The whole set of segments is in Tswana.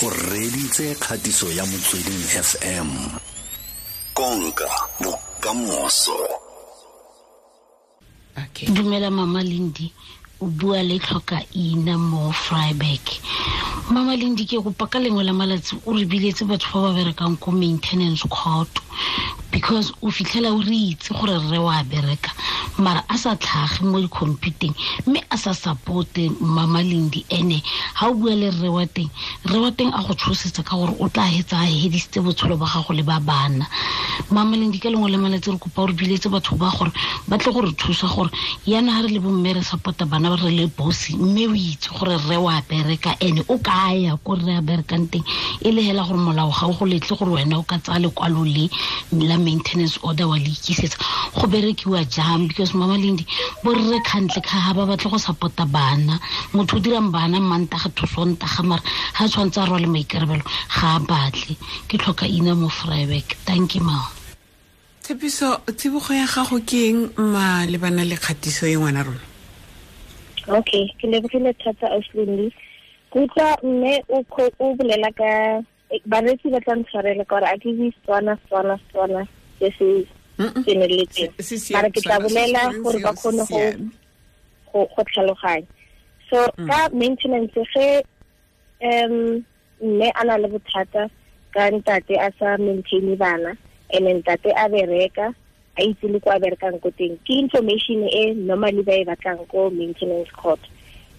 O reditse kgatiso ya Motsweding FM. Konka bokamoso. Okay. Dumela Mama Lindi, o bua le tlhoka ina mo Freiburg. Mama Lindi, ke kopa ka lengwe la malatsi o re biletse batho ba ba berekang ko maintenance court, because o fitlhela o re itse gore rre wa bereka mara a sa tlhage mo di-computeng mme a sa supporte Mama Lindi. Ene ha o bua le rre wa teng, rre wa teng a go tshosetsa ka gore o tla hetsa a hedisitse botshelo ba gago le ba bana. Mama Lindi, ka lengwe la malatsi re kopa o re biletse batho ba gore ba tle go re thusa gore yana ha re le bomme re supporta bana ba re le bosi, mme o itse gore rre wa bereka ene o ka ya ko rre a berekang teng, e le hela gore molao ga o go letle gore wena o ka tsaya lekwalo le la maintenance order wa le ikisetsa. Go berekiwa jang? Because Mama Lindi, bo rre kgantle ka ha ba batle go support-a bana. Motho o dirang bana Mantaga to Sontaga, mara ha tshwantse a rwale maikarabelo ga a batle. Ke tlhoka ina mo Freiburg. Thank you, ma. Tshepiso, tsibogo ya gago ke eng malebana le kgatiso e ngwana rona? Okay, ke lebogile thata Auslindi. Ke utlwa mme o bolela ka bareetsi ba tla ntshwarela ka gore a ke bue Setswana, Setswana, Setswana se se tseneletseng. Se se Mara ke tla Setswana, se bolela se gore ba se kgone siame. go tlhaloganya. So ka maintenance ge mme a na le bothata ka ntate a sa maintain bana, and ntate a bereka a itse le kwa berekang ko teng, ke information e normally ba e batlang ko maintenance court.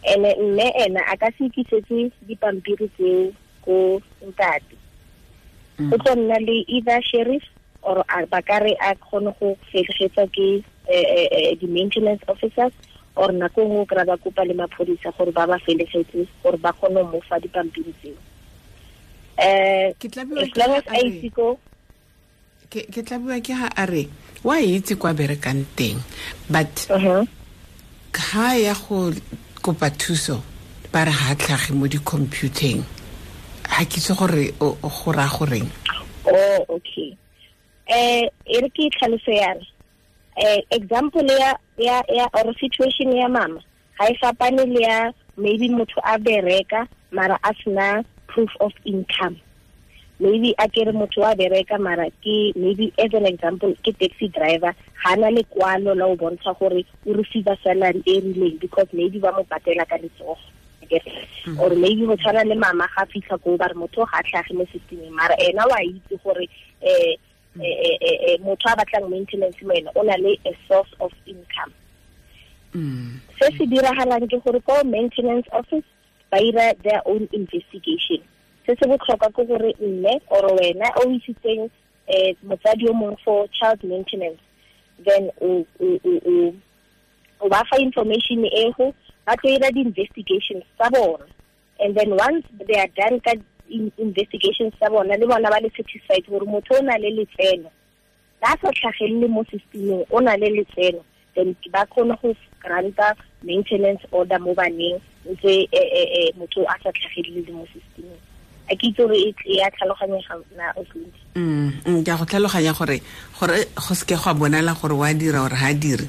And mme ena a ka se ikisetse dipampiri tseo ko ntate. Go tlo nna le either sheriff or ba ka re a kgone go felegetsa ke di-maintenance officers, or nako nngwe o kry-a ba kopa le maphodisa gore ba ba felegetse gore ba kgone ho mo fa dipampiri tseo. Ke tla bua As ke long ha as a a re itse ko ke tla bua ke ha a re wa itse kwa berekang teng, but ha ya go kopa thuso ba re ha tlhage mo di-computeng. Ha ke itse gore o go raya goreng. Oh, okay. E re ke tlhaloso yana. Example ya, ya, ya, or situation ya mama ha e fapane le ya maybe motho a bereka mara a sena proof of income. Maybe a kere motho wa bereka mara ke maybe as an example ke taxi driver, ga na lekwalo la o bontsha gore o receive salary e rileng because maybe ba mo patela ka letsogo. Or maybe go tshwana le mama ga fitlha ko ba re motho ga tlhage mo systemeng, mara ena wa itse gore motho a batlang maintenance mo ena o na le a source of income. Se se diragalang ke gore ko maintenance office ba ira their own investigation. Se se botlhokwa ke gore mme or wena o isitseng motsadi yo mongwe for child maintenance, then o ba fa information e go ba tlo ira di-investigations tsa bona, and then once they are done ka investigations tsa bona, le bona ba le satisfied gore motho o na le letseno, ba sa tlhagelele mo systemeng, o na le letseno, then ba kgone go granta maintenance order mo baneng ntse motho a sa tlhagelele mo systemeng. A ke itse gore e a tlhaloganyega na, Auslindi? Ke a go tlhaloganya gore go seke gwa bonala gore wa dira or ha dire.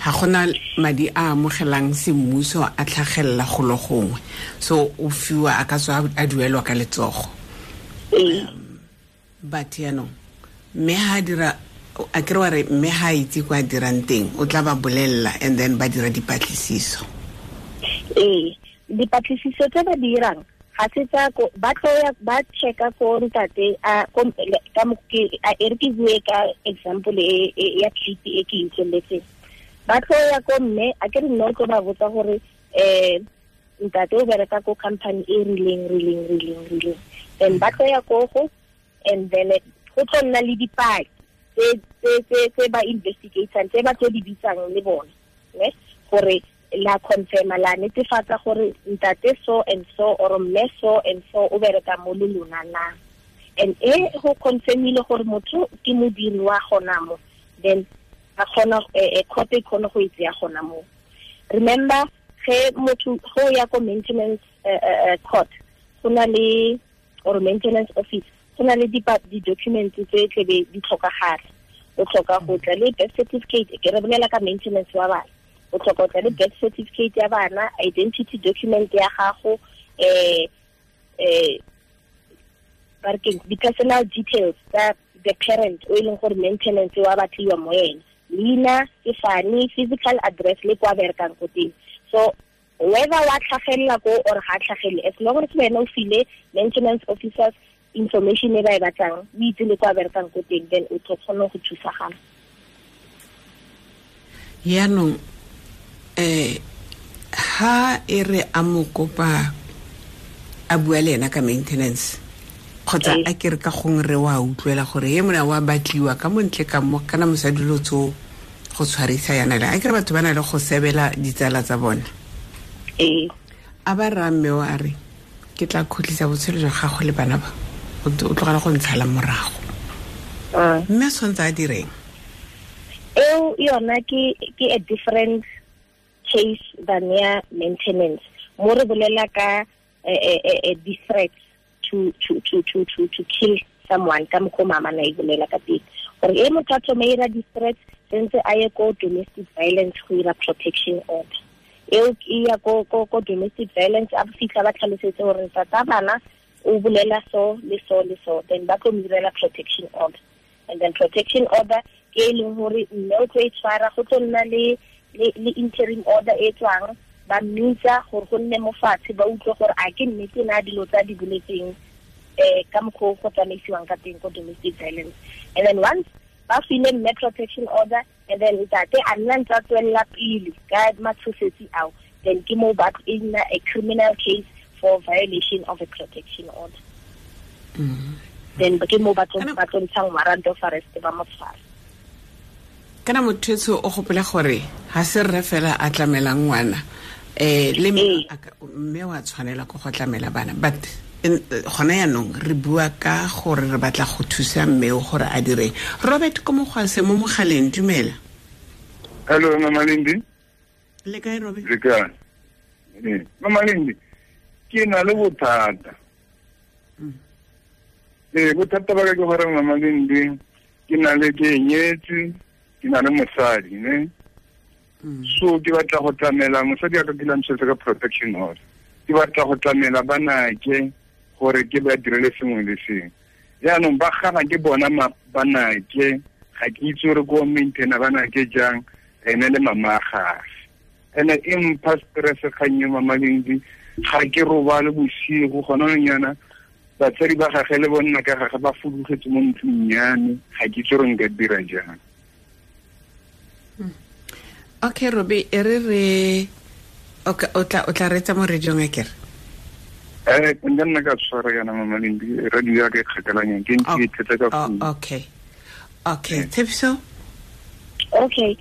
Ha gona madi a amogelang semmuso a tlhagelela golo gongwe, so o fiwa a ka tswa a duelwa ka letsogo. But yaanong mme ha dira, a kere wa re mme ha itse kwa dirang teng, o tla ba bolella and then ba dira dipatlisiso. Ee, dipatlisiso tse ba dirang ga se tsa ko, ba tlo ya ba checka ko ntate a ko, ka mo ke, a e re ke bue ka example e ya clip e ke utlweletseng. Ba tlo ya ko mme, a ke re nna o tlo ba botsa gore ntate o bereka ko company e rileng, rileng, rileng, rileng. Then ba tlo ya ko go, and then go tlo nna le dipaki tse ba investigatang, tse ba tlo di bitsang le bone, ne? Gore la confirma, la netefatsa gore ntate so and so or mme so and so o bereka mo le lona na. And e go confirmile gore motho ke modiri wa gona mo, then a kgona, court e kgone go e tseya gona mo. Remember, ge motho go ya ko maintenance court, go na le, or maintenance office, go na le di-documents tse tlebe di tlhokagala. O tlhoka go tla le birth certificate, ke re bolela ka maintenance wa bana. O tlhoka go tla le birth certificate ya bana, identity document ya gago, di personal details tsa the parent o e leng gore maintenance wa batliwa mo ene, leina, sefane, physical address le kwa berekang ko teng. So whether wa tlhagelela ko or ga tlhagele, as long as wena o file maintenance officers information e ba e batlang, o itse le kwa berekang ko teng, then o tlo kgona go thusagala. Yaanong ha e re a mo kopa a bua le ena ka maintenance kgotsa a ke re ka gongwe re wa utlwela gore ye mona wa batliwa ka montle ka mo kana mosadi lo tso go tshwarisa yana le a ke re batho ba na le go sebela ditsala tsa bona. A ba rra mme o a re ke tla khutlisa botshelo jwa gago le bana ba o tlogela go ntshala morago. Mme a tshwanetse a direng? Eo yona ke a different case than ya maintenance. Mo re bolela ka a threat to kill someone ka mokgwa mama na e bolela ka teng. Gore e motho a thome ira di-threats sentse a ye ko domestic violence go ira protection order. Eo e ya ko domestic violence a fitlha ba tlhalosetse gore tata bana o bolela so le so le so, then ba tlo mo direla protection order. And then protection order ke e leng gore mme o tlo e tshwara, go tlo nna le interim order e tswang ba mmitsa gore go nne mo fatshe ba utlwe gore a ke nnete na dilo tsa di boletseng ka mokgwa go tsamaisiwang ka teng ko domestic violence. And then once ba file mme protection order, and then ntate a nna ntse a tswelela pele ka matshosetsi ao, then ke mo ba e nna a criminal case for violation of a protection order. Then ke mo ba tlo ntshang warrant of arrest ba mo tshwara. Kana motho o gopola gore ha se rre fela a tlamelang ngwana le mme wa tshwanela go go tlamela bana, but gona yaanong re bua ka gore re batla go thusa mme o gore a dire. Robert ko mogwase mo mogaleng, dumela. Hello Mama Lindi. Le kae Robert? Le kae? Mama Lindi, ke na le bothata. Bothata ba ka ke gore Mama Lindi, ke na le ke nyetse, ke na le mosadi, ne? So ke batla go tlamela mosadi a ka ke lamsetse ka protection order. Ke batla go tlamela banake gore ke ba direle sengwe le sengwe. Jaanong ba gana ke bona banake, ga ke itse gore ko maintaina banake jang, ene le mama gage. Ene e mpha stress kgang e Mama Lindi, ga ke robale bosigo gona nyana batsadi ba gage le bonna ka gage ba fudugetse mo ntlong ya me, ga ke itse gore nka dira jang. Okay Robi, e re o tla retsa mo radiong a kere? Nka nna ka tshwara yana Mama Lindi, radio ya ka e kgakalanyang ke ntse ke ithetsa ka phone. Okay, Tshepiso? Okay,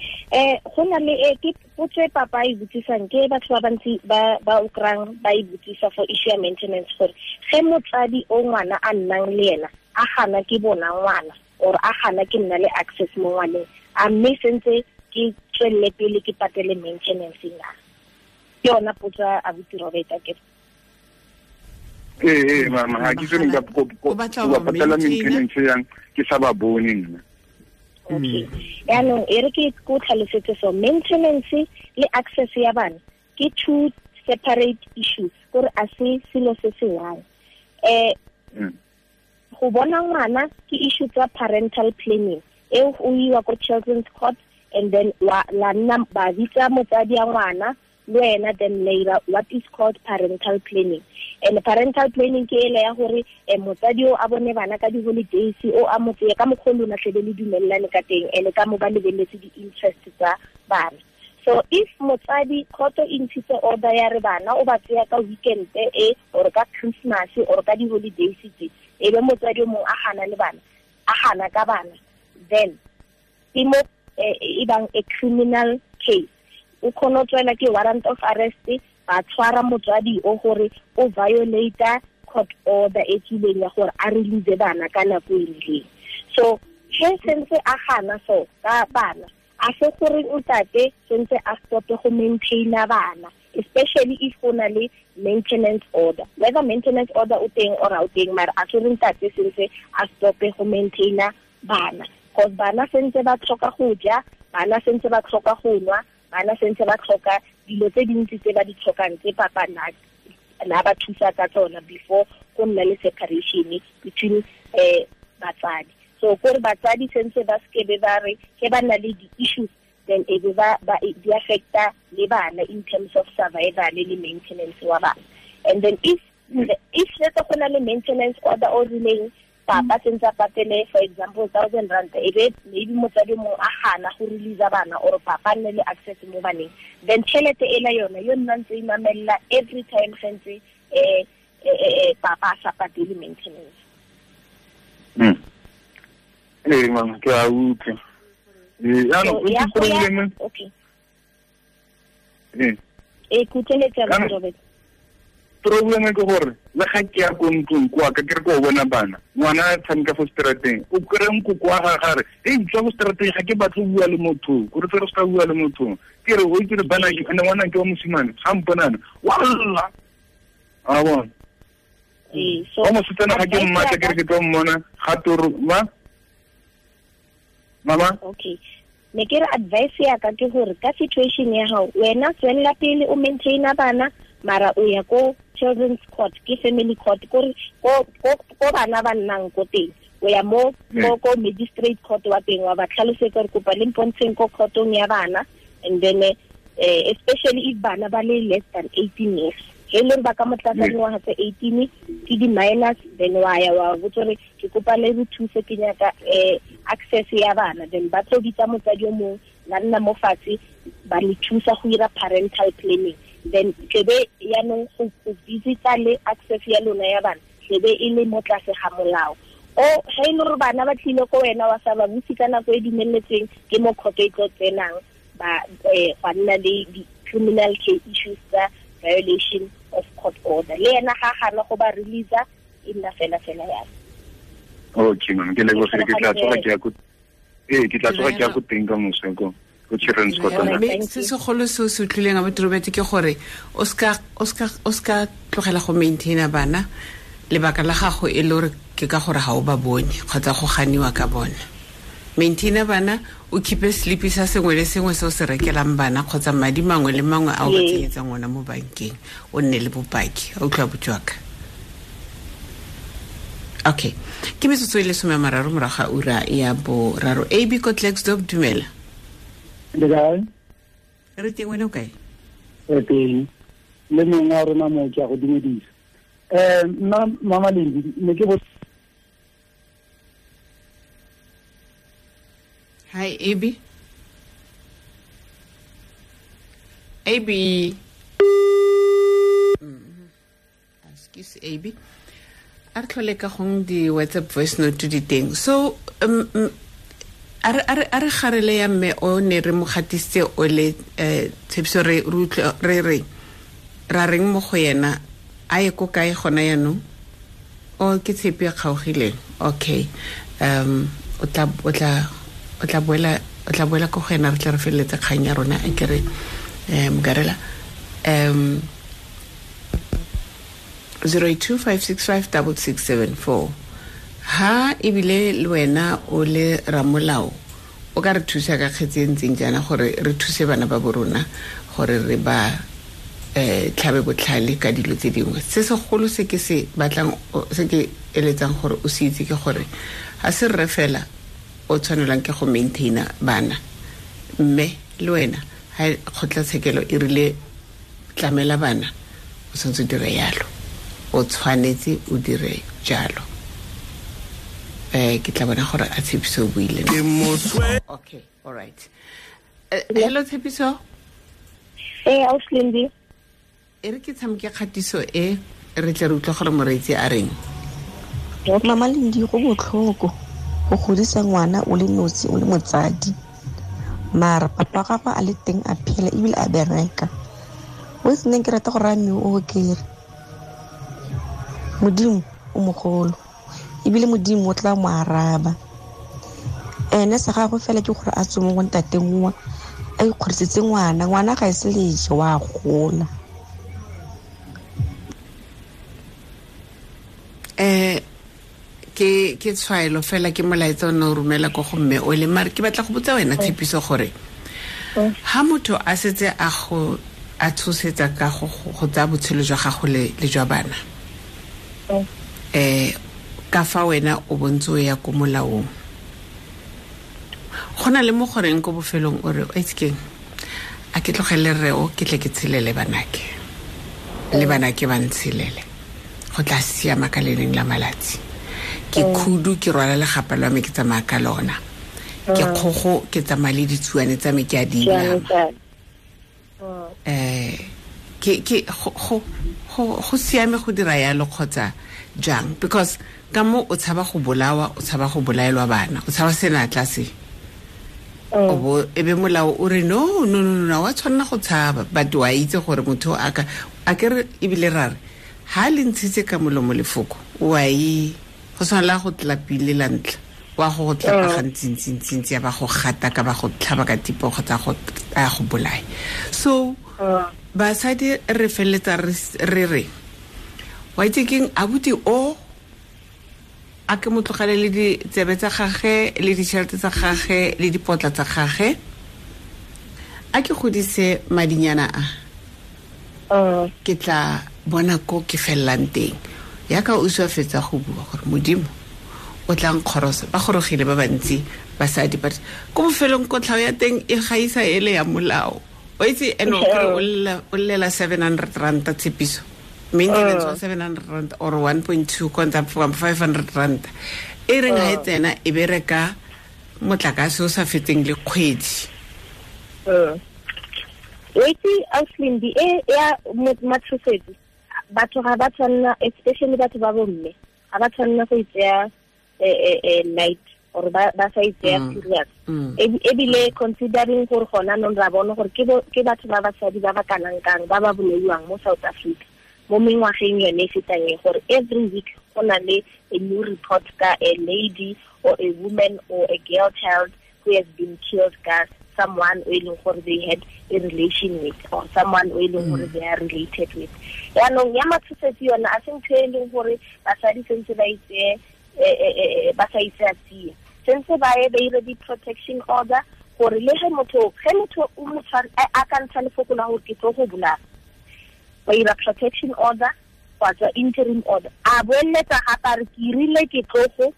go na le ke potso e papa e botsisang ke batho ba bantsi ba o krang ba e botsisa for issue ya maintenance gore ge motsadi o ngwana a nnang le ena a gana ke bona ngwana or a gana ke nna le access mo ngwaneng, a mme sentse ke tswelele pele ke patele maintenance na? Ke yona potso a botsi Robert a ke. Mama, ga ke itse nka go patela maintenance yang ke sa ba bone nna. Okay. Yaanong e re ke ko tlhalosetse so maintenance le access ya bana ke two separate issues, gore a se selo se se one. Go bona ngwana ke issue tsa parental planning eo o iwa ko children's court, and then la nna ba bitsa motsadi ya ngwana le wena, then later what is called parental planning. And parental planning ke ele ya gore motsadi o a bone bana ka di-holidays, o a mo tseye ka mokgwa lona tlebe le dumellane ka teng, ene ka mo ba lebeletse di-interest tsa bana. So if motsadi khoto e ntshitse order ya re bana o ba tseya ka weekend e or ka Christmas or ka di-holidays tse, e be motsadi o mongwe a gana le bana, a gana ka bana, then ke mo e bang a criminal case. O kgona go tswela ke warrant of arrest, ba tshwara motswadi o gore o violate court order e tswileng ya gore a release bana ka nako e rileng. So he sentse a gana so ka bana, a se gore ntate sentse a stope go maintaina bana, especially if go na le maintenance order. Whether maintenance order o teng or ha o teng, mara a se re ntate sentse a stope go maintaina bana, because bana sentse ba tlhoka go ja, bana sentse ba tlhoka go nwa, bana sentse ba tlhoka dilo tse dintsi tse ba di tlhokang tse papa na na ba thusa ka tsona before go nna le separation between batsadi. So gore batsadi sentse ba skebe ba re ke ba na le di-issues, then e be ba di affecta le bana in terms of survival le maintenance wa bana. And then if let's go na le maintenance order o rileng, papa sentse a patele for example 1,000 rand, e be maybe motsadi mongwe a gana go release bana or papa nne le access mo baneng, then tšhelete ela yona yo nna ntse e mamella every time sentse papa a sa patele maintenance. Mama, ke a utlwa. Jaanong okay. Robert. Problem ke gore le ga ke ya ko ntlong kwa ka ke re ko bona bana, ngwana a tshameka fo strateng, o kry nkoko wa gagwe a re, ei tswa fo strateng, ga ke batle go bua le motho, gore re se ka bua le motho. Ke re o itse re bana ke ene ngwana ke wa mosimane, ga mponana wa lla. A bona. So wa mosetsana ga ke mmatla ke re ke tlo mmona ga toro ma mama. Okay. Ne ke re advice ya ka ke gore ka situation ya gago wena tswelela pele o maintaina bana, mara o ya ko children's court, ke family court, ko bana ba nnang ko teng, o ya mo ko magistrate court wa teng, wa ba tlhalosetsa gore kopa le mpontsheng ko courtong ya bana, and then especially if bana ba le less than 18 years, e leng ba ka mo tlasa dingwaga tse 18 ke di-minors, then wa ya wa botsa gore ke kopa le re thuse ke nyaka access ya bana, then ba tlo bitsa motsadi o mongwe la nna mo fatshe ba le thusa go ira parental planning, then tlebe yaanong go visita le access ya lona ya bana tlebe e le mo tlase ga molao. O ga e le gore bana ba tlile ko wena wa sa ba buse ka nako e dumeletsweng, ke mo kgotso e tlo tsenang ba gwa nna le di-criminal case issues tsa violation of court order. Le ena ga gana go ba release e nna fela fela yalo. Okay mama, ke lebogile, ke tla tsoga ke ya ko ke tla tsoga ke ya ko teng ka moso ko children's court. Mme se segolo se o se utlwileng abuti Robert ke gore o ska tlogela go maintaina bana, lebaka la gago e le gore ke ka gore ga o ba bone kgotsa go ganiwa ka bone. Maintaina bana, o keep-e slip sa sengwe le sengwe se o se rekelang bana kgotsa madi mangwe le mangwe a o ba tsenyetsang ona mo bankeng, o nne le bopaki. A utlwa botswaka. Okay, ke metsotso e le 30 morago ga ura ya 3. AB ko Klerksdorp, dumela. Le kae? Re teng, wena o kae? Re teng. Le mongwe wa rona mo ke a go dumedisa. Nna Mama Lendi, ne ke Hi, AB. AB. Excuse AB. A re tlhole ka gong di WhatsApp voice note di teng. So a re garele ya mme o ne re mo gatisitse o le tshepiso re re ra reng mo go yena a ye ko kae gona yanong? O ke tshepi e kgaogileng. Okay. O tla boela ko go ena, re tla re feleletse kgang ya rona a kere Mokarela. 082-565-6674. Ha ebile le wena o le ramolao o ka re thusa ka kgetse e ntseng jaana gore re thuse bana ba borona gore re ba tlhabe botlhale ka dilo tse dingwe. Se segolo se ke se batlang, se ke eletsang gore o se itse ke gore ga se rre fela o tshwanelang ke go maintaina bana, mme le wena ha kgotlatshekelo e rile tlamela bana, o tshwanetse o dire yalo, o tshwanetse o dire jalo. Ke tla bona gore a Tshepiso o buile. Okay, all right. Hello Tshepiso. Ausi. E re ke tshameke kgatiso e re tle re utlwe gore moreetsi a reng. Mama Lendi, go botlhoko go godisa ngwana o le nosi o le motsadi, mara papa gagwe a le teng a phela ebile a bereka. O se neng ke rata go raya mme o kere Modimo o mogolo ebile Modimo o tla mo araba. Ene sa gagwe fela ke gore a tswe mo go ntateng wa a ikgodisetse ngwana, ngwana ga e se leje wa gola. Ke tshwaelo fela ke molaetsa o ne o romela ko go mme o le, mare ke batla go botsa wena Tshepiso gore ha motho a setse a go a tshosetsa ka go tsaya botshelo jwa gago le jwa bana. Ka fa wena o bontse o ya ko molaong. Go na le mo goreng ko bofelong o re o itse keng, a ke tlogele rre o ke tle ke tshelele banake le banake ba ntshelele, go tla siama ka le leng la malatsi. Ke khudu ke rwala legapa lwa me ke tsamaya ka lona, ke kgogo ke tsamaya le ditsuane tsa me ke a di inama. Ke go siame go dira yalo kgotsa jang? Because ka mo o tshaba go bolawa, o tshaba go bolaelwa bana, o tshaba senatla se. O bo e be molao o re no no no no, wa tshwanela go tshaba, but wa itse gore motho a ka a ke re ebile ra re ha le ntshitse ka molomo lefoko wa e go tshwanela go tlapile la ntla wa go tlapa gantsi ya ba go gata ka ba go tlhaba ka tipo kgotsa go a go bolaya. So basadi re feletsa re re wa itse keng abuti o a ke mo tlogele le ditsebe tsa gage le ditšhelete tsa gage le dipotla tsa gage, a ke godise madinyana a ke tla bona ko ke fellang teng. Yaka o swa fetsa go bua gore modimo o tla nkgorosa, ba gorogile ba bantsi basadi, but ko bofelong kotlhao ya teng e gaisa ele ya molao. O itse ene o kry o llela 700 rand tshepiso, maintenance wa 700 rand or 1.2 konta 500 rand e reng ha e tsena e bereka motlakase o sa feteng le kgwedi. Wait, Auslindi e ya matshosetsi batho ga ba tshwanela, especially batho ba bomme ga ba tshwanela go itseya light or ba sa itseya serious. Ebile considering gore gona nong ra bona gore ke batho ba basadi ba ba kanang kang ba ba bolaiwang mo South Africa mo mengwageng yone e fetang e, gore every week go na le a new report ka a lady or a woman or a girl child who has been killed ka someone o e leng gore they had a relation with or someone o e leng gore they are related with. Yaanong ya matshosetsi yona a se ntho e leng gore basadi sentse ba itseye ba sa itseya tsia, sentse ba ye ba ire di-protection order gore le ge motho o mo a ka ntsha lefoko la gore ke tlo go bolaya, ba ira protection order kgotsa interim order, a boeletsa gape a re ke irile ke tlo go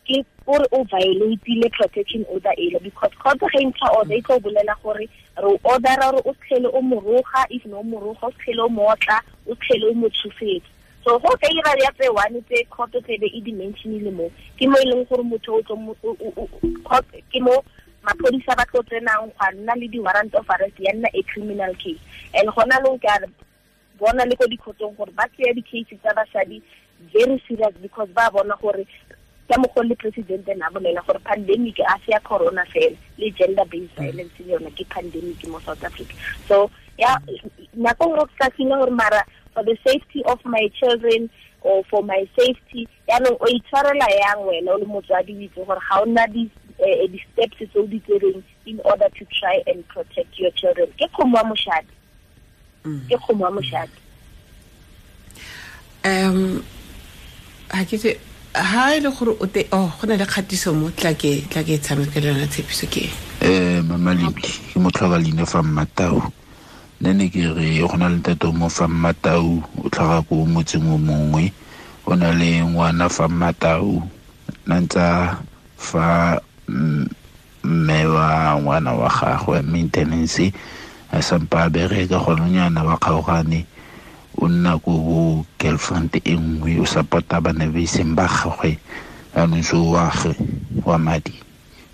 ke gore o violateile protection order ele, because court ge e ntsha order e tlo bolela gore re o ordera gore o tlhele o moroga, if no moroga o tlhele o mootla, o tlhele o mo tshosetsa. So go ka ira ya tse one tse court tlebe e dimensionile mo ke mo e leng gore motho o tlo court ke mo maphodisa ba tlo tsenang gwa nna le di-warrant of arrest ya nna a criminal case. And gona long ke a bona le ko dikhotong gore ba tseya di-case tsa basadi very serious, because ba bona gore ka mokgwa le president na bolela gore pandemic a se ya corona fela, le gender based violence le yona ke pandemic mo South Africa. So ya nako nngwe ka feel gore mara for the safety of my children or for my safety, yaanong o itshwarela yang wena o le motswadi o itse gore ga o nna di-steps tse o di tsereng in order to try and protect your children. Ke kgomo wa moshadi. Ke kgomo wa moshadi. Ha ke tse ha e le gore o te oh go na le kgatiso mo tla ke tshameka le yona tshepiso ke Mama Lindi ke motlhoka leina fa Mmatau. Nne ne ke re go na le ntate mo fa Mmatau o tlhaga ko motseng o mongwe, o na le ngwana fa Mmatau na ntsa fa mme wa ngwana wa gagwe maintenance a sampa bereka gone nyana ba kgaogane, o nna ko bo girlfriend e nngwe o support-a bana ba iseng ba gagwe, jaanong so wa gwe wa madi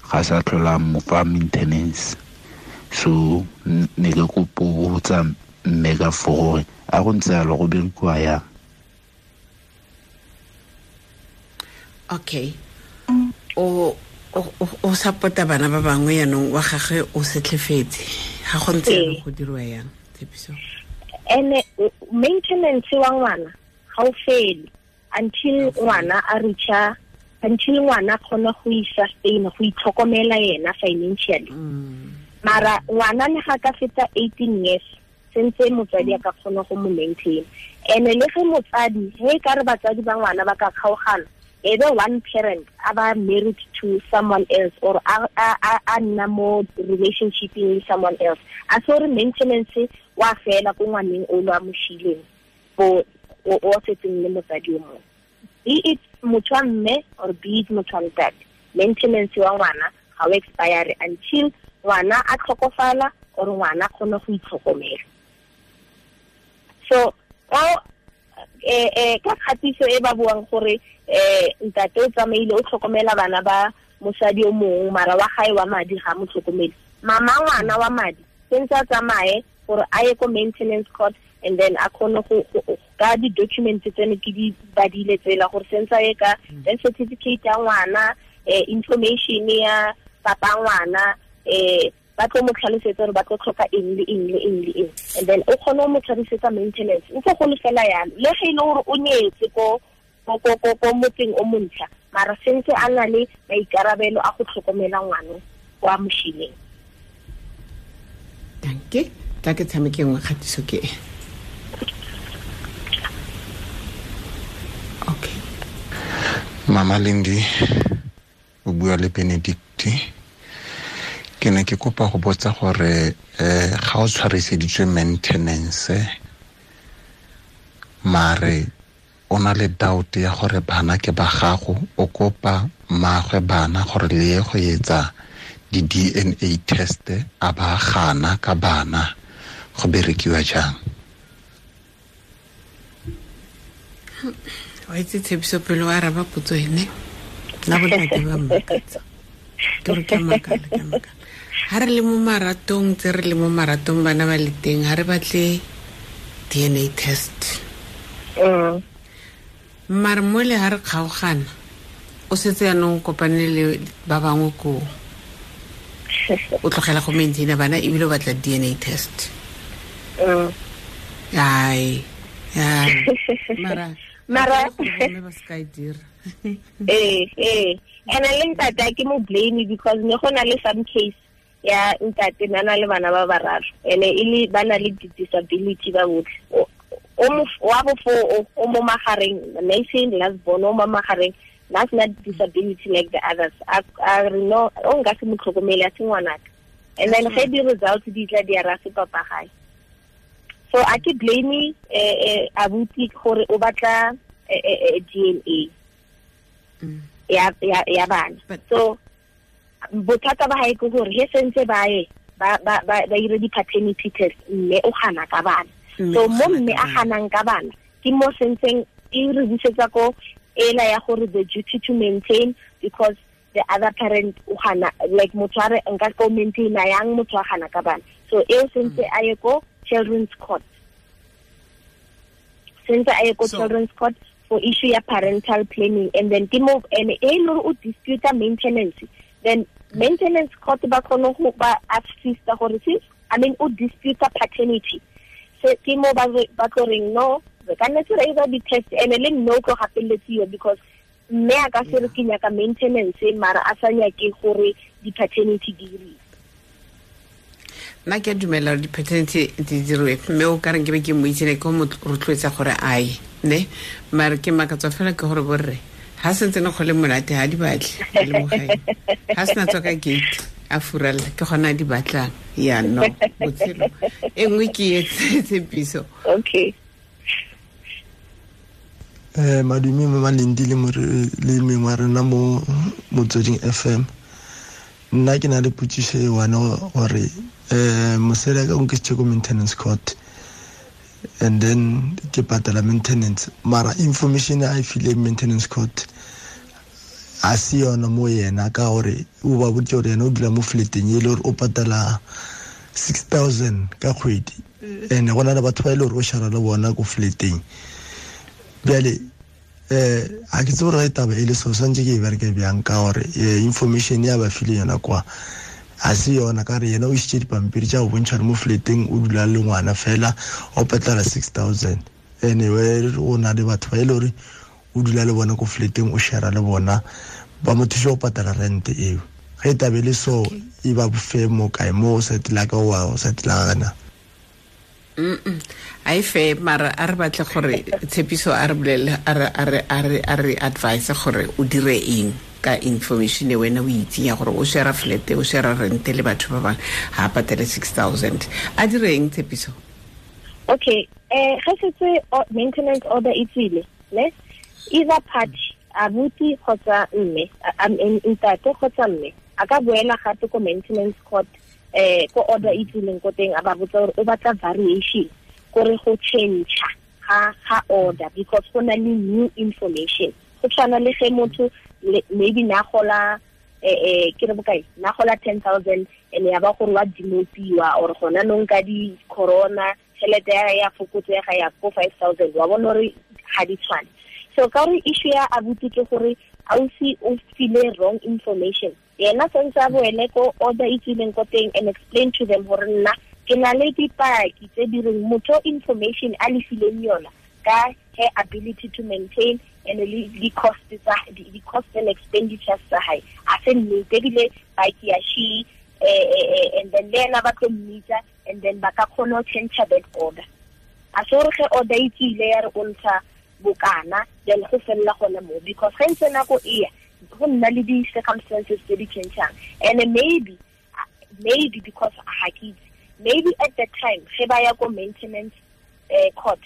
ga sa tlhola mo fa maintenance. So ne ke kopo go tsa mme ka fo gore a go ntse yalo go berekiwa yang. Okay, o support-a bana ba bangwe yaanong wa gagwe o setlhefetse, ga go ntse yalo go dirwa yang tshepiso? Ene maintenance wa ngwana ga o fele until ngwana a reacha, until ngwana kgona go i-sustain, go itlhokomela yena financially. Mara ngwana le ga ka feta 18 years sentse motswadi a ka kgona go mo maintain. Ene le ge motsadi he ka re batswadi ba ngwana ba ka kgaogana, Either one parent a ba married to someone else or a nna mo relationship with someone else, a so re maintenance wa fela ko ngwaneng o lo a mo shileng o o setseng le motsadi o mongwe, be it motho wa mme or be it motho wa ntate, maintenance wa ngwana ga o expire until ngwana a tlhokofala or ngwana kgone go itlhokomela. So ka kgatiso e ba buang gore ntate o tsamaile o tlhokomela bana ba mosadi o mongwe, mara wa gae wa madi ga mo tlhokomele, mama ngwana wa madi sentse a tsamaye gore a ye ko maintenance court, and then a kgone go ka di-documents tsene ke di badile tsela gore sentse a ye ka death certificate ya ngwana, information ya papa ngwana, ba tlo mo tlhalosetsa gore ba tlo tlhoka eng le eng le eng le eng, and then o kgone go mo tlhalosetsa maintenance ntse go le fela yalo, le ge e le gore o nyetse ko motseng o montšha, mara sentse a na le maikarabelo a go tlhokomela ngwana wa moshileng. Danke, tla ke tshameke nngwe kgatiso ke e. Okay. Mama Lindi o bua le Benedict. Ke ne ke kopa go botsa gore ga o tshwariseditswe maintenance mare o na le doubt ya gore bana ke ba gago, o kopa mmagwe bana gore le ye go etsa di-DNA test, a ba gana ka bana, go berekiwa jang? Wa itse Tshepiso pele wa araba potso ene, nna bontate ba mmakatsa. Ke gore ke a makala, ke a makala. Ha re le mo maratong, tse re le mo maratong bana ba le teng, ha re batle DNA test. Mare mole ha re kgaogana, o setse yanong kopane le ba bangwe ko, o tlogela go maintaina bana ebile o batla DNA test. Ai, ai. Mara ba se ka e dira. And le ntate ke mo blame because ne go na le some case ya ntate na na le bana ba bararo, ene e le ba na le disability ba botlhe, o mo wa bofo o mo magareng, nation last born o mo magareng, that's not disability like the others. A re no, o nka se mo tlhokomele a se ngwanaka, and then ge di results di tla di ara se papa gae. So a ke blame abuti gore o batla DNA ya bana. So bothata ba hae ke gore he sentse ba ye ba ire di-paternity test, mme o gana ka bana. So mo mme a ganang ka bana ke mo sentseng e re busetsa ko ela ya gore the duty to maintain, because the other parent o gana, like motho a re nka ko maintain yang motho a gana ka bana. So eo sentse a ye ko children's court, sentse a ye ko children's court for issue ya parental planning, and then ke mo and e le o dispute maintenance, then maintenance court ba kgone go ba assista gore since I mean o dispute paternity, so ke mo ba tlo reng no, re ka nna re ira di-test, and le nno o tlo gapeletsiwa because mme a ka se re ke nyaka maintenance mara a sa nyake gore di-paternity di diriwe. Nna ke a dumela gore di-paternity di diriwe, mme o ka reng ke be ke mo itsene ke mo rotloetsa gore a ye, ne mare ke makatswa fela ke gore borre ha sentse ne go le monate ha di batle le mo gae, ha sena tswa ka gate a furalla ke gona a di batlang. Ya no botshelo e nngwe ke e Tshepiso. Okay. Madume Mama Lindi le mengwe wa rena mo Motsweding FM. Nna ke na le potšišo e one gore mosadi a ka o nkisitše ko maintenance court, and then ke patela maintenance, mara information a e fileng maintenance court a se yona mo yena, ka gore o ba boditše gore yena o dula mo flateng e le gore o patela 6,000 ka kgwedi, and go na le batho ba e le gore o shara le bona ko flateng. Bjale a ke tsebe gore taba e le so swantse ke e bereke bjang, ka gore information ya ba file yona kwa a se yona, ka re yena o isitše dipampiri tša go bontšha gore mo flateng o dula le ngwana fela o patela 6,000, anyway o na le batho ba e le gore o dula le bona ko flateng o share le bona, ba mo thuša go patela rent eo. Ge taba e le so e ba bofe mo kae mo o sa tla ka wa o sa tla gana. A e fe mara a re batle gore Tshepiso a re bolele a re advise gore o dire eng ka information e wena o itseng ya gore o share flat, o share rent le batho ba bangwe, ha patele 6000. A dire eng, Tshepiso? Okay, ge setse maintenance order e tswile, ne, either party, abuti kgotsa mme, ntate kgotsa mme, a ka boela gape ko maintenance court, ko order e tswileng ko teng, a ba botsa gore o batla variation, gore go change ga order because go na le new information. Go tshwana le ge motho maybe na gola ke re bokae, na gola 10,000 and ya ba gore wa demotiwa or gona nong ka di corona tšhelete ya fokotsega ya ko 5,000, wa bona gore ga di tshwane. So ka gore issue ya abuti ke gore ausi o file wrong information, yena sentse a boele ko order e tswileng ko teng and explain to them gore nna ke na le dipaki tse di reng motho information a le fileng yona ka her ability to maintain and the cost tsa the cost and expenditures tsa hae a se nnete, ebile paki ya she and then le ena ba tlo mmitsa and then ba ka kgona go change that order. A se gore ge order e tswile ya re o ntsha bokana, then go felela gona mo, because ge ntse nako e ya go nna le di-circumstances tse di changeang. And maybe because ga ke itse, maybe at that time ge ba ya ko maintenance court,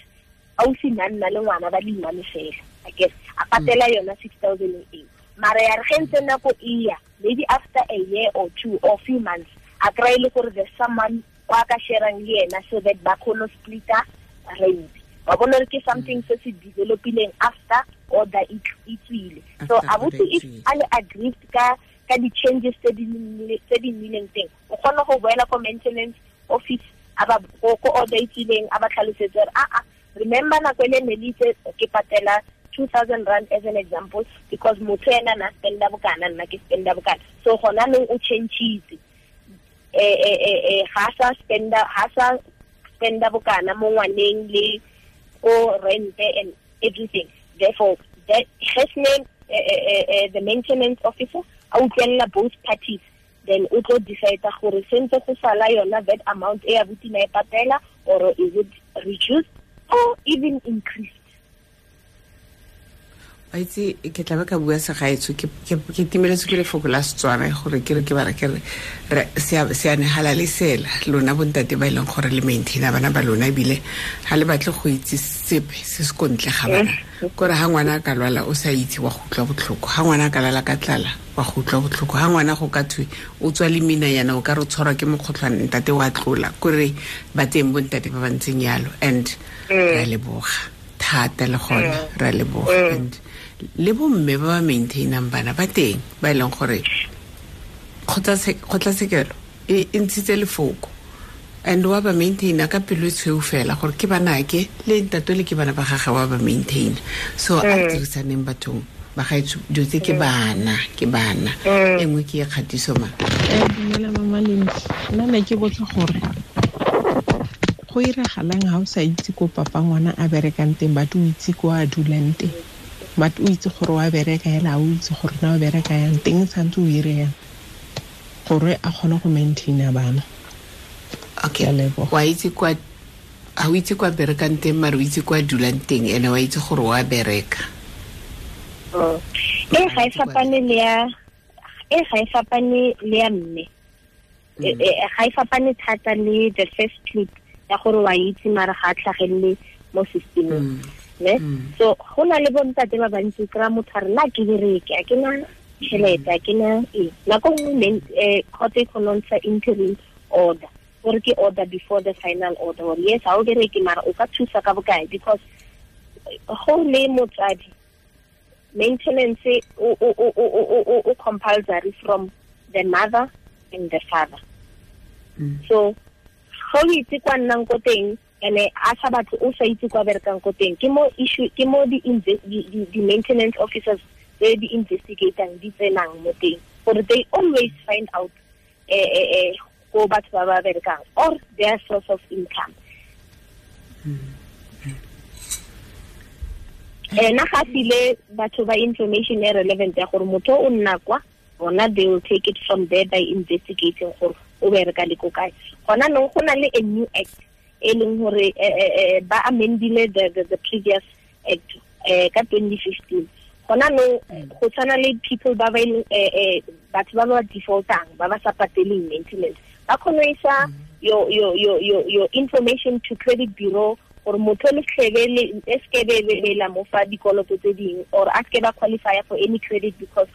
ausi na nna le ngwana ba le one fela, I guess a patela yona 6,000 eo. Mara ya re ge ntse nako e ya, maybe after a year or two or few months, a kry le gore there's someone wa ka sharang le yena so that ba kgone go splitta rent. Wa bona gore ke something se se developileng after order e tswile. So abuti if a le aggrieved ka di-changes tse di nnileng teng, o kgona go boela ko maintenance office a ba ko order e tswileng, a ba tlhalosetse gore a remember nako ele ne le itse ke patela 2,000 rand as an example, because motho ena na spenda bokana, nna ke spenda bokana. So gona nong o changeitse, ga sa spenda bokana mo ngwaneng le ko rent and everything. Therefore, that his name, the maintenance officer, a utlwella both parties, then o tlo decide gore sentse go sala yona that amount e abuti na e patela, or is it reduced or even increased. Wa itse ke tla ba ka bua segaetsho, ke timeletse ke lefoko la Setswana gore ke re ke bara ke re seane hala le sela lona bontate ba e leng gore le maintaina bana ba lona, ebile ga le batle go itse sepe se se kontle ga bana. Kore ha ngwana a ka lwala o sa itse wa go utlwa botlhoko, ha ngwana a ka lala ka tlala wa go utlwa botlhoko, ha ngwana go ka thwe o tswa le mina yana o ka re tshwarwa ke mokgotlhwane ntate wa tlola. Kore ba teng bontate ba ba ntseng yalo, and re a leboga thata le gona, re a leboga. And le bomme ba ba maintainang bana ba teng ba e leng gore kgotlatshekelo e ntshitse lefoko, and wa ba maintaina ka pelo e tshweu fela gore ke banake le ntate le ke bana ba gagwe wa ba maintaina. So a dirisaneng bathong ba gaetsho, dilo tse ke bana, ke bana. E nngwe ke e kgatiso ma. Dumela Mama Lindi, nna ne ke botsa gore go iragalang ha o sa itse ko papa ngwana a berekang teng, but o itse ko a dulang teng, but o itse gore wa bereka hela, o itse gore na o bereka yang teng, santse o ire yang gore a kgone go maintaina bana. Okay, wa itse kwa ha o itse kwa berekang teng, mara o itse kwa dulang teng, ene wa itse gore wa bereka. E ga e fapane le ya, e ga e fapane le ya mme, ga e fapane thata le the first clip ya gore wa itse mara ga a tlhagelele mo systemeng. Ne? So go na le bontate ba bantsi kry-a motho a re nna ke bereke, a ke na tšhelete, a ke na eng. Nako nngwe court e kgona go ntsha interim order, gore ke order before the final order, gore yes ha o bereke mara o ka thusa ka bokae, because go le motsadi maintenance o compulsory from the mother and the father. So go itse kwa nnang ko teng, ene a sa batle o sa itse kwa berekang ko teng, ke mo issue, ke mo di maintenance officers tse di investigatang di tsenang mo teng, gore they always find out ko batho ba ba berekang or their source of income. Ena ga file batho ba information e relevant ya gore motho o nna kwa, bona they will take it from there by investigating gore o bereka le ko kae. Gona nong go na le a new act e leng gore ba amendile the previous act ka 2015. Gona no go tshwana le people ba ba batho ba ba defaultang, ba ba sa pateleng maintenance, ba kgone go isa your information to credit bureau gore motho le tlhebe le skebe la mo fa dikoloto tse ding, or a ske ba qualify for any credit because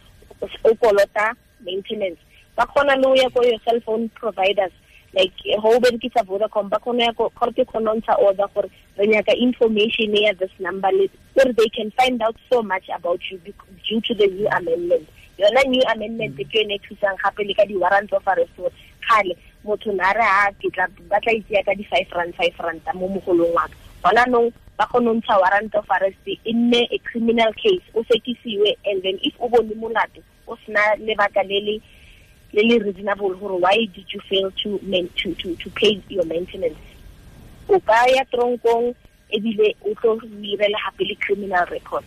o kolota maintenance. Ba kgona le ho ya ko your cell phone providers, like ho berekisa Vodacom, ba kgona ya ko court kgona ntsha order gore re nyaka information ya this number, or they can find out so much about you due to the new amendment. Yona new amendment ke yone e thusang gape le ka di-warrants of arrest. Kgale motho na re a ke tla batla itse ka di 5 rand 5 rand mo mogolong wa ka. Gona nong ba kgona ntsha warrant of arrest e nne a criminal case, o sekisiwe, and then if o bone molato o sena lebaka le le reasonable gore why did you fail to pay your maintenance, o ka ya tronkong ebile o tlo irela gape le criminal record.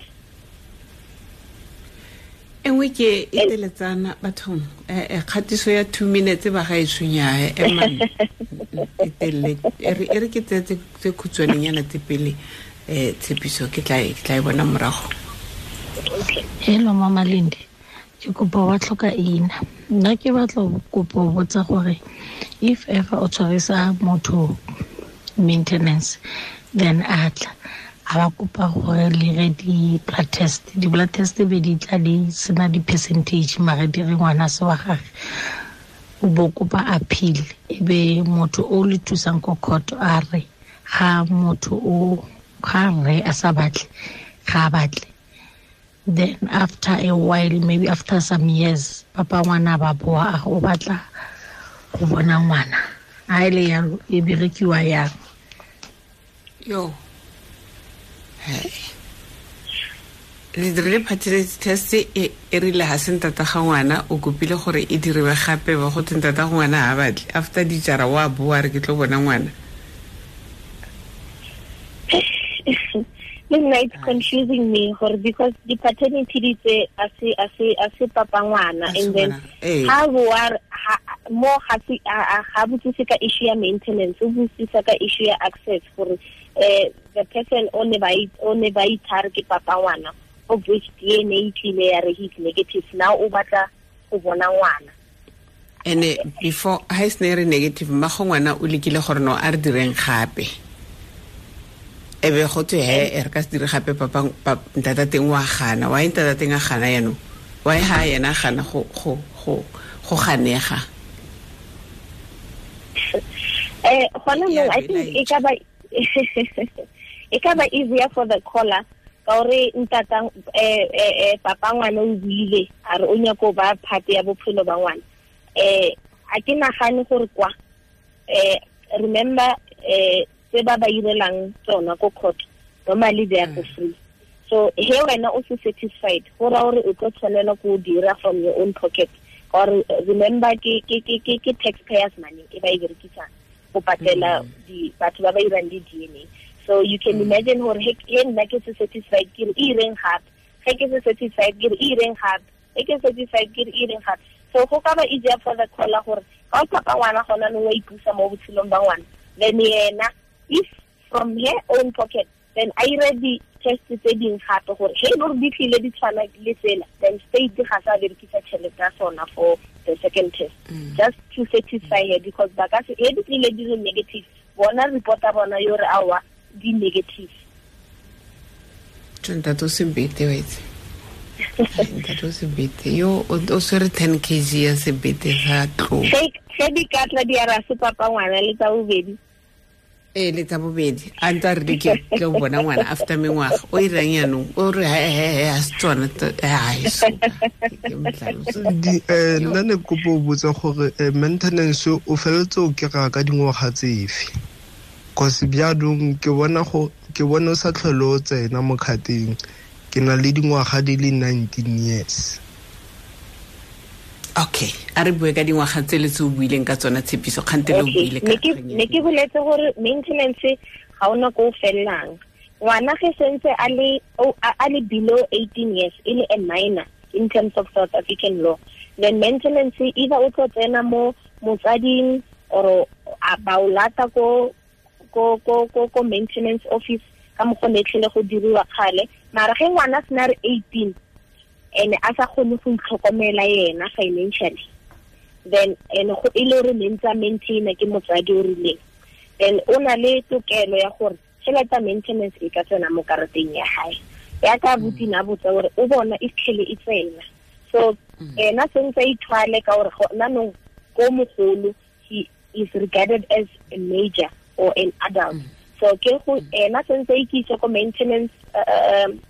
Engwe ke e teletsana bathong, kgatiso ya 2 minutes ba ga e tshwenya emang e telle e re ke tse khutshwanenyana tse pele tshepiso ke tla e bona morago. Hello Mama Lindi, ke kopa wa tlhoka ina. Nna ke batla kopo botsa gore if ever o tshwarisa motho maintenance, then a tla a ba kopa gore le re di-blood test, di-blood test be di tla di sena di-percentage mare di re ngwana se wa gage, o bo kopa appeal, e be motho o le thusang ko court a re ga motho o ga re a sa batle, ga a batle. Then after a while, maybe after some years, papa ngwana ba boa o batla go bona ngwana, a ile yalo e berekiwa yang? Yo hey, le dirile paternity test e rile ha se ntata ga ngwana, o kopile gore e diriwe gape ba go tse ntata ga ngwana ha batle, after dijara wa boa re ke tlo bona ngwana. Nna it's confusing me gore because the paternity di tse a se papa ngwana, and then ha boa mo ga se ga botsise ka issue ya maintenance, o botsisa ka issue ya access gore the person o ne ba ithare ke papa ngwana, of which DNA tlile ya re he's negative, now o batla go bona ngwana. Ene before ha e se re negative, mma go ngwana o lekile gore no a re direng gape, e be go twe he re ka se dire gape papa ntata teng wa gana, wa ntata teng a gana yano, wa ha yena gana go go go go ganega. Gona no, I think e ka ba easier for the caller ka gore ntata papa ngwana o buile a re o nyako ba part ya bophelo ba ngwana. A ke nagane gore kwa remember tse ba ba irelang tsona ko court normally they are for free, so he wena o se satisfied go ra gore o tlo tshwanela go dira from your own pocket, or remember ke taxpayers money e ba e berekisang go patela di batho ba ba irang di DNA. So you can imagine gore he nna ke se satisfied ke re ireng gape, ge ke se satisfied ke re ireng gape, ge ke satisfied ke re ireng gape. So go ka ba easier for the caller gore ga o papa ngwana gona no wa ipusa mo botshelong ba ngwana, then yena if from her own pocket then I ready test tse ding gape gore he no di tlile di tshwana le tsela, then state ga sa berekisa tšhelete ya sona for the second test, just to satisfy her, because ba ka se he di tlile di le negative, bona reporta bona yo re awa di negative. Ntate o sebete wa itse, ntate o sebete yo o swere 10 kg ya sebete sa tlo ge di ka tla di ara se papa ngwana le tsa bobedi. Le tsa bobedi a ntse re ke tlo bona ngwana after mengwaga o irang yanong o re he a se tsona ai so ke mtlhaloso. Nna ne kopo botsa gore maintenance o feletse o kry-a ka dingwaga tsefe, cause bjaanong ke bona o sa tlhole o tsena mo kgateng, ke na le dingwaga di le 19 years. Okay, a re bue ka dingwaga tse le tse o buileng ka tsona tshepiso kgante le o buile ka ne ke boletse gore maintenance ga ona ko fellang ngwana ge sentse a le below 18 years e le a minor in terms of South African law, then maintenance either o tlo tsena mo motsading or ba o lata ko ko ko ko ko maintenance office ka mo go netlhele go diriwa kgale. Mara ge ngwana a sena re 18 ene a sa kgone go itlhokomela yena financially, then ene go e le gore ne ntse a maintaina ke motsadi o rileng, then o na le tokelo ya gore tšhelete ya maintenance e ka tsena mo karateng ya hae. Ya ka butina botsa gore o bona e tlhele e tsena. So ena sentse a ithwale ka gore gona nong ko mogolo, he is regarded as a major or an adult. So ke go ena sentse a ikise ko maintenance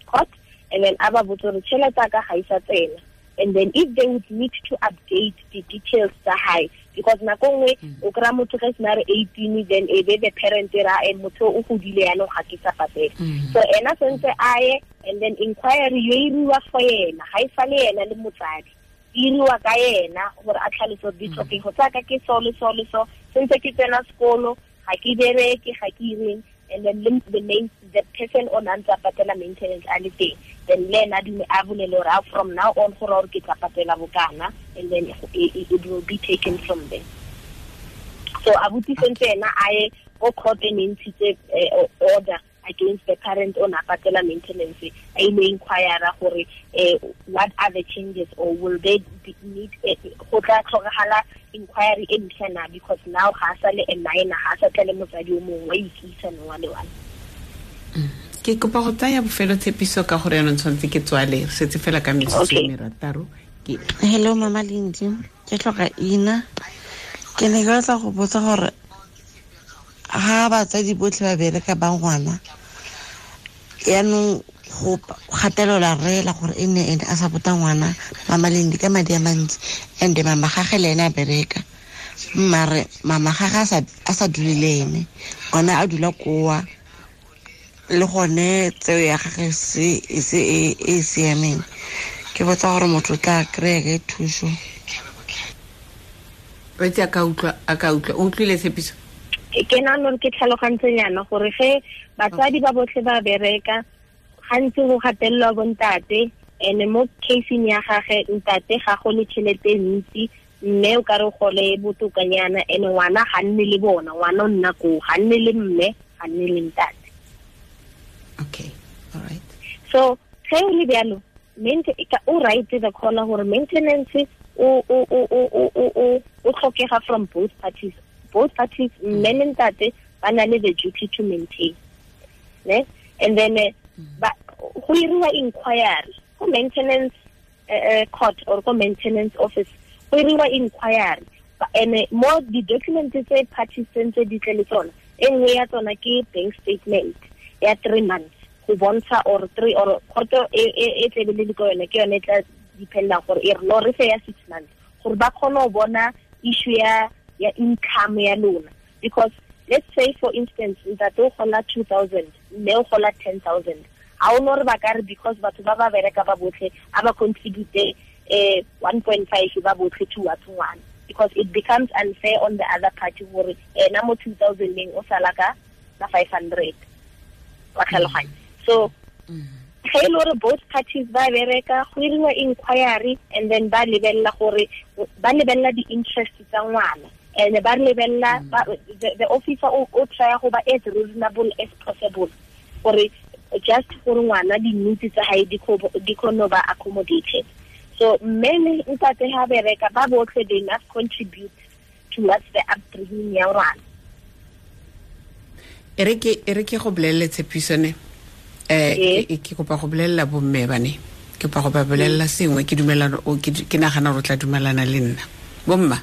court, and then a ba botsa gore tšhelete ya ka ga e sa tsena. And then if they would need to update the details tsa hae, because nako nngwe o kry-a motho ge sena re 18, then e be the parent ra e motho o godile yanong ga ke sa patele. So ena sentse a ye, and then inquiry yo iriwa for yena, ga e sale yena le motsadi, e iriwa ka yena gore a tlhalose gore ditlhokego tsa ka ke so le so le so, sentse ke tsena sekolo, ga ke bereke, ga ke ireng. And then the main, the person on ntse a patela maintenance a le teng, then le ena dume a bolele gore from now on gore gore ke tla patela bokana, and then it will be taken from there. So abuti sentse ena a ye ko court e ne ntshitse order against the parent on a patela maintenance, a ile inquire gore what are the changes, or will they need go tla tlhokagala inquiry e ntšha na, because now ga sa le a minor, ga sa tla le motsadi o mongwe wa ikisa no wa le one. Ke kopa go tsaya bofelo tshepiso ka gore yanong tshwanetse ke tswale, re setse fela ka metsotso e merataro. Ke Hello Mama Lindi, ke tlhoka ina. Ke ne ke batla go botsa gore ha batsadi botlhe ba bereka ba ngwana, yaanong go gatelela rela gore e nne ene a support-a ngwana Mama Lindi ka madi a mantsi, and mama gage le ene a bereka, mare mama gage a sa dule le ene, ngwana a dula koa le gone tseo ya gage se e se e siameng. Ke botsa gore motho o tla kry-a ke thuso. Wetse a ka utlwa, o utlwile tshepiso? Ke nahana hore ke tlhalogantsenyana gore ge batsadi ba botlhe ba bereka, gantsi go gatelelwa bontate, and mo caseng ya gage ntate ga go le tšhelete e ntsi, mme o ka re gole botokanyana, and ngwana ga nne le bona, ngwana o nna koo, ga nne le mme, ga nne le ntate. Okay, all right. So ge o le bjalo, o right the caller gore maintenance o tlhokega from both parties. Both parties, mme le ntate, ba na le the duty to maintain. Ne? And then go iriwa inquiry ko maintenance court or ko maintenance office, go iriwa inquiry, and mo di document tse parties tse di tle le tsona, e nngwe ya tsona ke bank statement ya 3 months go bontsha, or 3 or court e tlebe le ko yone, ke yone e tla dependa gore e re no re fe ya 6 months gore ba kgone go bona issue ya income ya lona. Because let's say for instance ntate o gola 2,000, mme o gola 10,000, ha o no re ba ka re because batho ba ba bereka ba botlhe a ba contribute 1.5 ba botlhe towards ngwana, because it becomes unfair on the other party gore ena mo 2,000 leng o sala ka 500 wa tlhaloganya. So ge e le gore both parties ba bereka, go iriwa inquiry, and then ba lebelela gore ba lebelela di-interest tsa ngwana, and ba lebelela the officer o try go ba as reasonable as possible gore just gore ngwana di-needs tsa hae di kgone ba accommodated. So mme le ntate ha bereka ba botlhe, they must contribute towards the upbringing ya ngwana. E re ke go bolelele tshepiso ne. Ke kopa go bolelela bomme bane, ke kopa go ba bolelela sengwe, ke dumelana o ke nagana gore o tla dumelana le nna. Bomma,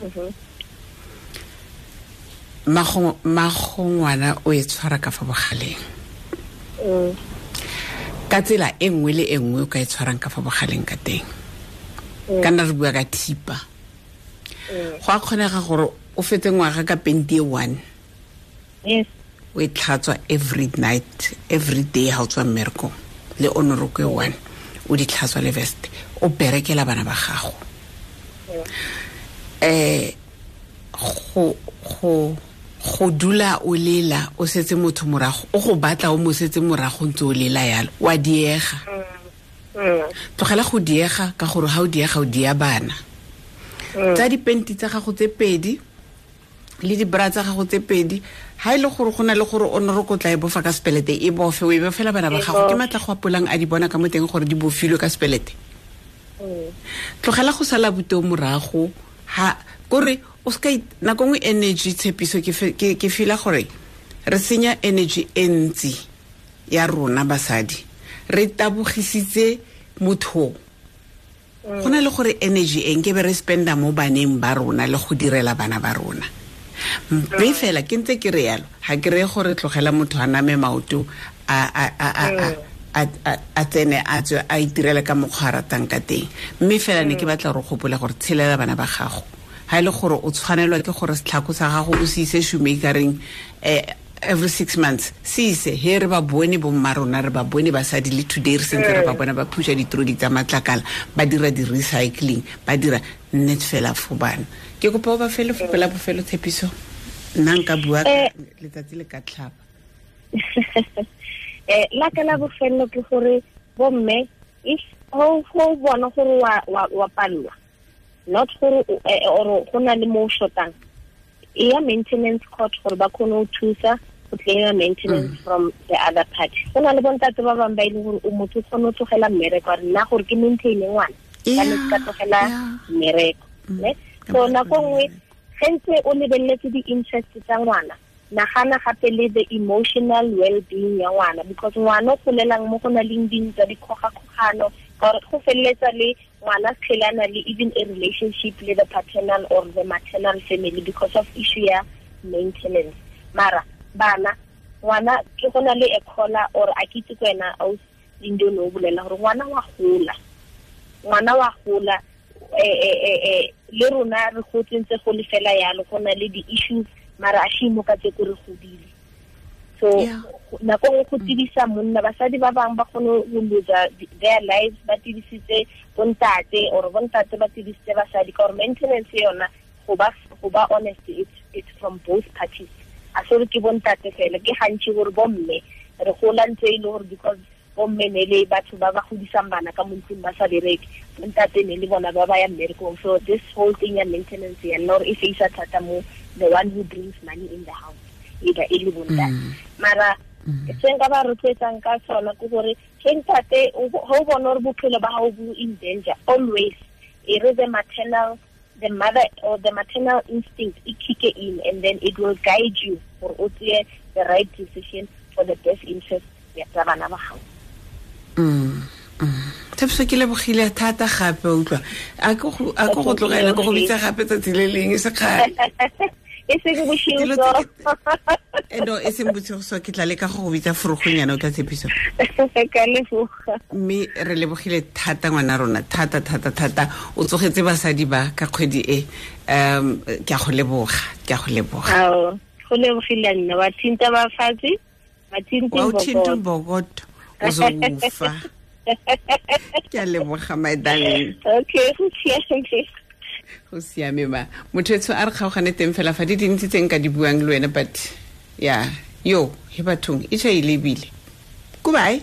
mago ngwana o e tshwara ka fa bogaleng. Ka tsela e nngwe le e nngwe o ka e tshwarang ka fa bogaleng ka teng. Ka nna re bua ka thipa. Go a kgonega gore o fetse ngwaga ka penti e 1. Yes. O e tlhatswa every night, every day ha o tswa mmerekong, le onoroko e 1, o di tlhatswa le vest, o berekela bana ba gago. Go dula o lela o setse motho morago, o go batla o mo setse morago ntse o lela yalo, wa diega. Tlogela go diega ka gore ha o diega o dia bana. Tsa dipenti tsa gago tse pedi Le di-bra tsa gago tse pedi, ha ile gore go na le gore o ne re kotla e bofa ka sepelete, e bofe, o e bofela bana ba gago. Ke matla go apolang a di bona ka mo teng gore di bofilwe ka sepelete. Tlogela go sala boteo morago, ha kore o ska nako nngwe energy tshepiso ke feel gore re senya energy e ntsi ya rona basadi, re tabogisitse motho. Go na le gore energy e nke be re spenda mo baneng ba rona le go direla bana ba rona. Mme fela ke ntse ke re yalo, ha ke re gore tlogela motho a name maoto a tsene a tswe a itirele ka mokgwa a ratang ka teng. Mme fela ne ke batla gore gopola gore tshelela bana ba gago. Ha ile gore o tshwanelwa ke gore setlhako sa gago o se ise shoemakereng every 6 months, se ise he re ba bone bo mma rona, re ba bone basadi le today re sentse re ba bona ba phusha ditroli tsa matlakala, ba dira di-recycling, ba dira net fela for bana. Ke kopa o ba fele fopela bofelo tshepiso, nna nka bua letsatsi le ka tlhaba. La ka la bofelo ke gore bomme if ho bona gore wa palelwa, not gore or go na le mo shotang, e ya maintenance court gore ba kgone go thusa go claim maintenance from the other party. Go na le bontate ba bangwe ba e leng gore o motho o kgone go tlogela mmereko, a re nna gore ke maintain ngwana ka ne ka tlogela mmereko, ne. So nako nngwe ge ntse o lebeletse di-interest tsa ngwana, nagana gape le the emotional well-being ya ngwana, because ngwana o golelang mo go na leng dintwa, dikgogakgogano, ka gore go feleletsa le ngwana tshelana le even a relationship le the paternal or the maternal family because of issue ya maintenance. Mara bana ngwana ke go na le a caller or a kitse ko wena o Lindo no bolela gore ngwana wa gola, le rona re gotse ntse go le fela yalo, go na le di-issues mara a shimo ka tse ko re godile. So nako nngwe go tibisa monna, basadi ba bangwe ba kgone go lose their lives ba tibisitse bontate, or bontate ba tibisitse basadi, ka gore maintenance yona go ba honest, it's from both parties. A se re ke bontate fela, ke gantsi gore bomme re gola ntse e le gore because bomme ne le batho ba ba godisang bana ka mo ntlong ba sa bereke, bontate ne le bona ba ba ya mmerekong. So this whole thing ya maintenance ya nna gore e feisa thata mo the one who brings money in the house, either e le bontate. Mara se nka ba rotloetsang ka sona ke gore ge ntate ho bona gore bophelo ba gago bo in danger, always e re the maternal, the mother or the maternal instinct e kick in, and then it will guide you gore o tseye the right decision for the best interest ya tsa bana ba gago. Tshepiso ke lebogile thata gape, utlwa a ko go tlogela ko go bitsa gape tsatsi le leng e se kgale. E seng bosigo so. No, e seng bosigo so, ke tla leka go go bitsa forogonyana o tla tshepiso. Ka leboga. Mme re lebogile thata ngwana rona, thata thata thata. O tsogetse basadi ba ka kgwedi e. Ke a go leboga, ke a go leboga. Ao, go lebogile nna, wa thinta ba fatshe, wa thinta mbokoto. O zokufa. Ke a leboga my darling. Okay, go siame. Go siame ma. Motho etsho a re kgaogane teng fela fa di dintsi tse nka di buang le wena, but yeah, yo he bathong e tšha e lebile. Goodbye.